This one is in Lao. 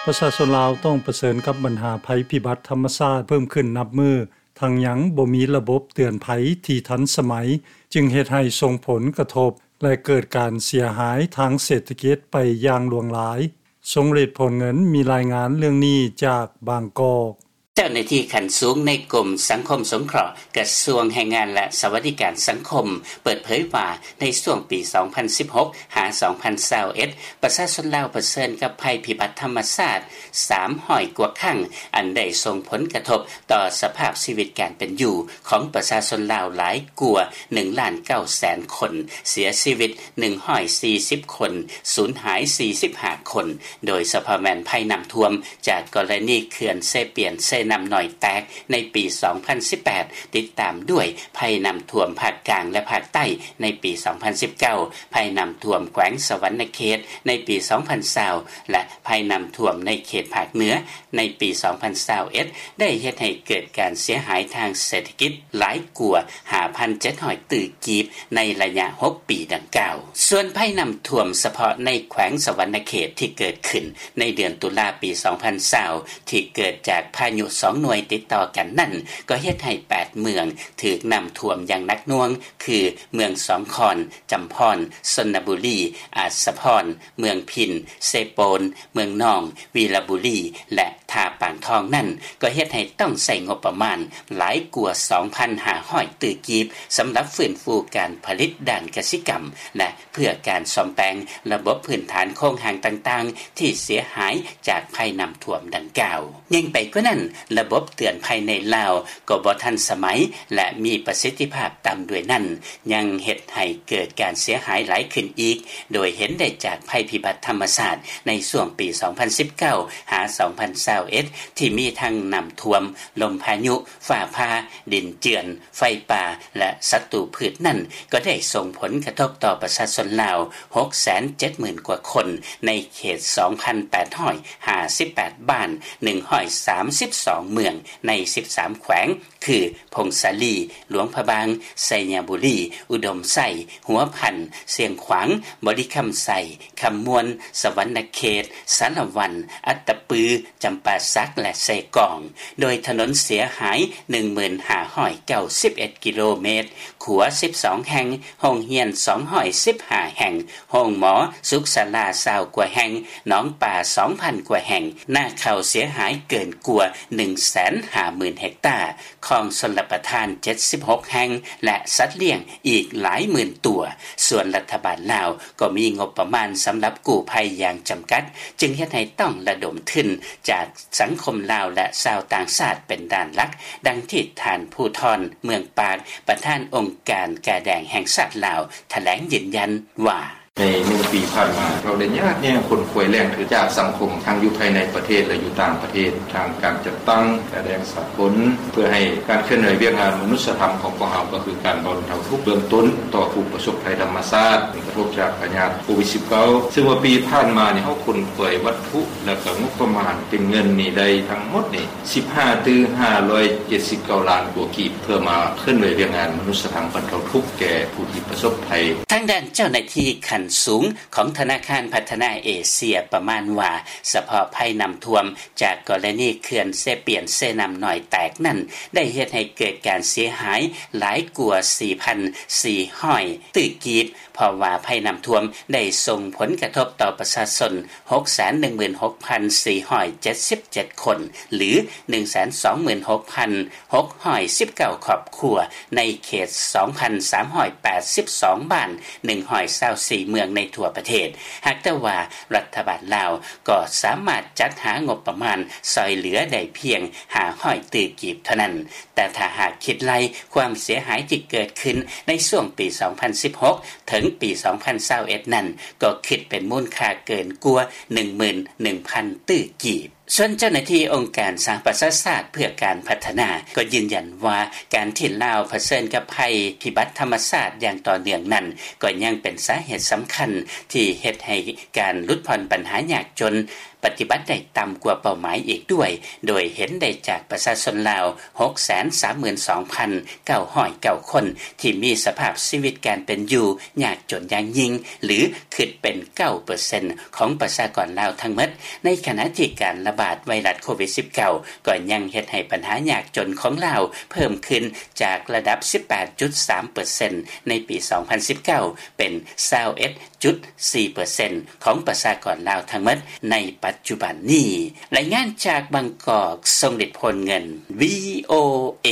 ປະຊາຊົນລາວຕ້ອງປະເຊີນກັບບັນຫາໄພພິບັດທຳມະຊາດເພີ່ມຂຶ້ນນັບມື້, ທັງຍັງບໍ່ມີລະບົບເຕືອນໄພທີ່ທັນສະໄໝ, ຈຶ່ງເຮັດໃຫ້ສົ່ງຜົນກະທົບ ແລະ ເກີດການເສຍຫາຍທາງເສດຖະກິດໄປຢ່າງຫຼວງຫຼາຍ. ຊົງເດດ ໂພນເງິນ ມີລາຍງານເລື່ອງນີ້ຈາກບາງກອກ. ເຈົ້າໜ້າທີ່ຂັ້ນສູງໃນກົມສັງຄົມສົງເຄາະ ກະຊວງແຮງງານ ແລະ ສະຫວັດດີການສັງຄົມ ເປີດເຜີຍວ່າ ໃນຊ່ວງປີສອງພັນສິບຫົກ ຫາ ສອງພັນຊາວເອັດ ປະຊາຊົນລາວປະເຊີນກັບໄພພິບັດທຳມະຊາດສາມຮ້ອຍກວ່າຄັ້ງ, ອັນໄດ້ສົ່ງຜົນກະທົບຕໍ່ສະພາບຊີວິດການເປັນຢູ່ຂອງປະຊາຊົນລາວຫຼາຍກວ່າໜຶ່ງລ້ານເກົ້າແສນຄົນ, ເສຍຊີວິດໜຶ່ງຮ້ອຍສີ່ສິບຄົນ, ສູນຫາຍສີ່ສິບຫ້າຄົນ, ໂດຍສະເພາະແມ່ນໄພນ້ຳຖ້ວມ ຈາກກໍລະນີເຂື່ອນເຊປຽນເຊນ້ຳນ້ອຍແຕກໃນປີສອງພັນສິບແປດ, ຕິດຕາມດ້ວຍໄພນ້ຳຖ້ວມພາກກາງ ແລະ ພາກໃຕ້ໃນປີສອງພັນສິບເກົ້າ, ໄພນ້ຳຖ້ວມແຂວງສະຫວັນນະເຂດໃນປີສອງພັນຊາວ ແລະ ໄພນ້ຳຖ້ວມໃນເຂດພາກເໜືອໃນປີສອງພັນຊາວເອັດ ໄດ້ເຮັດໃຫ້ເກີດການເສຍຫາຍທາງເສດຖະກິດຫຼາຍກວ່າຫ້າພັນເຈັດຮ້ອຍຕື້ກີບໃນໄລຍະຫົກປີດັ່ງກ່າວ. ສ່ວນໄພນ້ຳຖ້ວມສະເພາະໃນແຂວງສະຫວັນນະເຂດທີ່ເກີດຂຶ້ນໃນເດືອນຕຸລາປີສອງພັນຊາວ ທີ່ເກີດຈາກພາຍຸສອງໜ່ວຍຕິດຕໍ່ກັນນັ້ນ ກໍເຮັດໃຫ້ແປດເມືອງຖືກນ້ຳຖ້ວມຢ່າງໜັກໜ່ວງ ຄື ເມືອງສອງຄອນ, ຈຳພອນ, ຊົນນະບູລີ, ອາດສະພອນ, ເມືອງພິນ, ເຊໂປນ, ເມືອງນອງ, ວີລະບູລີ ແລະ ທ່າປາງທອງນັ້ນ ກໍເຮັດໃຫ້ຕ້ອງໃຊ້ງົບປະມານຫຼາຍກວ່າສອງພັນຫ້າຮ້ອຍຕື້ກີບ ສຳລັບຟື້ນຟູການຜະລິດດ້ານກະສິກຳ ແລະ ເພື່ອການສ້ອມແປງລະບົບພື້ນຖານໂຄງຮ່າງຕ່າງໆ ທີ່ເສຍຫາຍຈາກໄພນ້ຳຖ້ວມດັ່ງກ່າວ. ຍິ່ງໄປກວ່ານັ້ນ, ລະບົບເຕືອນໄພໃນລາວກໍບໍ່ທັນສະໄໝ ແລະ ມີປະສິດທິພາບຕ່ຳດ້ວຍນັ້ນ, ຍັງເຮັດໃຫ້ເກີດການເສຍຫາຍຫຼາຍຂຶ້ນອີກ, ໂດຍເຫັນໄດ້ຈາກໄພພິບັດທຳມະຊາດໃນຊ່ວງປີສອງພັນສິບເກົ້າ ຫາ ສອງພັນຊາວເອັດ ທີ່ມີທັງນ້ຳຖ້ວມ, ລົມພາຍຸ, ຟ້າຜ່າ, ດິນເຈື່ອນ, ໄຟປ່າ ແລະ ສັດຕູພືດນັ້ນ ກໍໄດ້ສົ່ງຜົນກະທົບຕໍ່ປະຊາຊົນລາວຫົກແສນເຈັດໝື່ນກວ່າຄົນ ໃນເຂດສອງພັນແປດຮ້ອຍຫ້າສິບແປດບ້ານ ໜຶ່ງຮ້ອຍສາມສິບສອງເມືອງ ໃນສິບສາມແຂວງ ຄື ຜົ້ງສາລີ, ຫຼວງພະບາງ, ໄຊຍະບູລີ, ອຸດົມໄຊ, ຫົວພັນ, ຊຽງຂວາງ, ບໍລິຄຳໄຊ, ຄຳມ່ວນ, ສະຫວັນນະເຂດ, ສາລະວັນ, ອັດຕະປື, ຈຳປາສັກ ແລະ ເຊກອງ, ໂດຍຖະໜົນເສຍຫາຍໜຶ່ງໝື່ນຫ້າຮ້ອຍເກົ້າສິບເອັດກິໂລເມດ, ຂົວສິບສອງແຫ່ງ, ໂຮງຮຽນສອງຮ້ອຍສິບຫ້າແຫ່ງ, ໂຮງໝໍ, ສຸກສາລາຊາວກວ່າແຫ່ງ, ໜອງປາສອງພັນກວ່າແຫ່ງ, ນາເຂົ້າເສຍຫາຍເກີນກວ່າໜຶ່ງແສນຫ້າໝື່ນເຮັກຕາ, ຄອງຊົນລະປະທານເຈັດສິບຫົກແຫ່ງ ແລະ ສັດລ້ຽງອີກຫຼາຍໝື່ນຕົວ. ສ່ວນລັດຖະບານລາວກໍມີງົບປະມານສຳລັບກູ້ໄພຢ່າງຈຳກັດ, ຈຶ່ງເຮັດໃຫ້ຕ້ອງລະດົມທຶນຈາກສັງຄົມລາວ ແລະ ຊາວຕ່າງຊາດເປັນດ້ານຫຼັກ, ດັ່ງທີ່ທ່ານ ພູທອນ ເມືອງປາກ, ປະທານອົງການກາແດງແຫ່ງຊາດລາວ ຖະແຫຼງຢືນຢັນວ່າ: ໃນໜຶ່ງປີຜ່ານມາ ເຮົາໄດ້ຍາດແຍ່ຂົນຂວາຍແຫຼ່ງທຶນຈາກສັງຄົມ ທັງຢູ່ພາຍໃນປະເທດ ແລະ ຢູ່ຕ່າງປະເທດ, ທາງການຈັດຕັ້ງກາແດງສາກົນ ເພື່ອໃຫ້ການເຄື່ອນໄຫວວຽກງານມະນຸດສະທຳຂອງພວກເຮົາ ກໍຄືການບັນເທົາທຸກເບື້ອງຕົ້ນຕໍ່ຜູ້ປະສົບໄພທຳມະຊາດ ຜົນກະທົບຈາກພະຍາດໂຄວິດສິບເກົ້າ ຊຶ່ງວ່າປີຜ່ານມານີ້ ເຮົາຂົນຂວາຍວັດຖຸ ແລະ ກໍງົບປະມານເປັນເງິນນີ້ໄດ້ທັງໝົດນີ້ ສິບຫ້າຕື້ຫ້າຮ້ອຍເຈັດສິບເກົ້າລ້ານກວ່າກີບ ເພື່ອມາເຄື່ອນໄຫວວຽກງານມະນຸດສະທຳບັນເທົາທຸກແກ່ຜູ້ທີ່ປະສົບໄພ. ທາງດ້ານເຈົ້າໜ້າທີ່ຂັ້ນສູງຂອງທະນາຄານພັດທະນາເອເຊຍປະມານວ່າ ສະເພາະໄພນ້ຳຖ້ວມຈາກກໍລະນີເຂື່ອນເຊປຽນເຊນ້ຳນ້ອຍແຕກນັ້ນ ໄດ້ເຮັດໃຫ້ເກີດການເສຍຫາຍຫຼາຍກວ່າສີ່ພັນສີ່ຮ້ອຍຕື້ກີບ, ເພາະວ່າໄພນ້ຳຖ້ວມໄດ້ສົ່ງຜົນກະທົບຕໍ່ປະຊາຊົນ ຫົກແສນໜຶ່ງໝື່ນຫົກພັນສີ່ຮ້ອຍເຈັດສິບເຈັດຄົນ ຫຼື ໜຶ່ງແສນສອງໝື່ນຫົກພັນຫົກຮ້ອຍສິບເກົ້າຄອບຄົວ ໃນເຂດສອງພັນສາມຮ້ອຍແປດສິບສອງບ້ານ ໜຶ່ງຮ້ອຍຊາວສີ່ເມືອງໃນທົ່ວປະເທດ. ຫາກແຕ່ວ່າລັດຖະບານລາວກໍສາມາດຈັດຫາງົບປະມານຊ່ອຍເຫຼືອໄດ້ພຽງຫ້າຮ້ອຍຕື້ກີບເທົ່ານັ້ນ, ແຕ່ຖ້າຫາກຄິດໄລ່ຄວາມເສຍຫາຍທີ່ເກີດຂຶ້ນໃນຊ່ວງປີສອງພັນສິບຫົກ ເຖິງປີສອງພັນຊາວເອັດນັ້ນ ກໍຄິດເປັນມູນຄ່າເກີນກວ່າໜຶ່ງໝື່ນໜຶ່ງພັນຕື້ກີບ. ສ່ວນເຈົ້າໜ້າທີ່ອົງການສະຫະປະຊາຊາດເພື່ອການພັດທະນາ ກໍຢືນຢັນວ່າ ການທີ່ລາວຜະເຊີນກັບໄພພິບັດທຳມະຊາດຢ່າງຕໍ່ເນື່ອງນັ້ນ ກໍຍັງເປັນສາເຫດສຳຄັນທີ່ເຮັດໃຫ້ການຫຼຸດຜ່ອນບັນຫາຍາກຈົນ ປະຕິບັດໄດ້ຕ່ຳກວ່າເປົ້າໝາຍອີກດ້ວຍ ໂດຍເຫັນໄດ້ຈາກປະຊາຊົນລາວ ຫົກແສນສາມໝື່ນສອງພັນເກົ້າຮ້ອຍເກົ້າຄົນ ທີ່ມີສະພາບຊີວິດການເປັນຢູ່ຍາກຈົນຢ່າງຍິ່ງ ຫຼື ຄິດເປັນເກົ້າເປີເຊັນຂອງປະຊາກອນລາວທັງໝົດ, ໃນຂະນະທີ່ການລະບາດໄວຣັສໂຄວິດສິບເກົ້າ ກໍຍັງເຮັດໃຫ້ບັນຫາຍາກຈົນຂອງລາວເພີ່ມຂຶ້ນຈາກລະດັບສິບແປດຈຸດສາມເປີເຊັນໃນປີສອງພັນສິບເກົ້າ ເປັນຊາວເອັດຈຸດສີ່ເປີເຊັນຂອງປະຊາກອນລາວທັງໝົດໃນປັດຈຸບັນນີ້. ລາຍງານຈາກບາງກອກ, ຊົງລິດ ໂພນເງິນ ວີໂອເອ.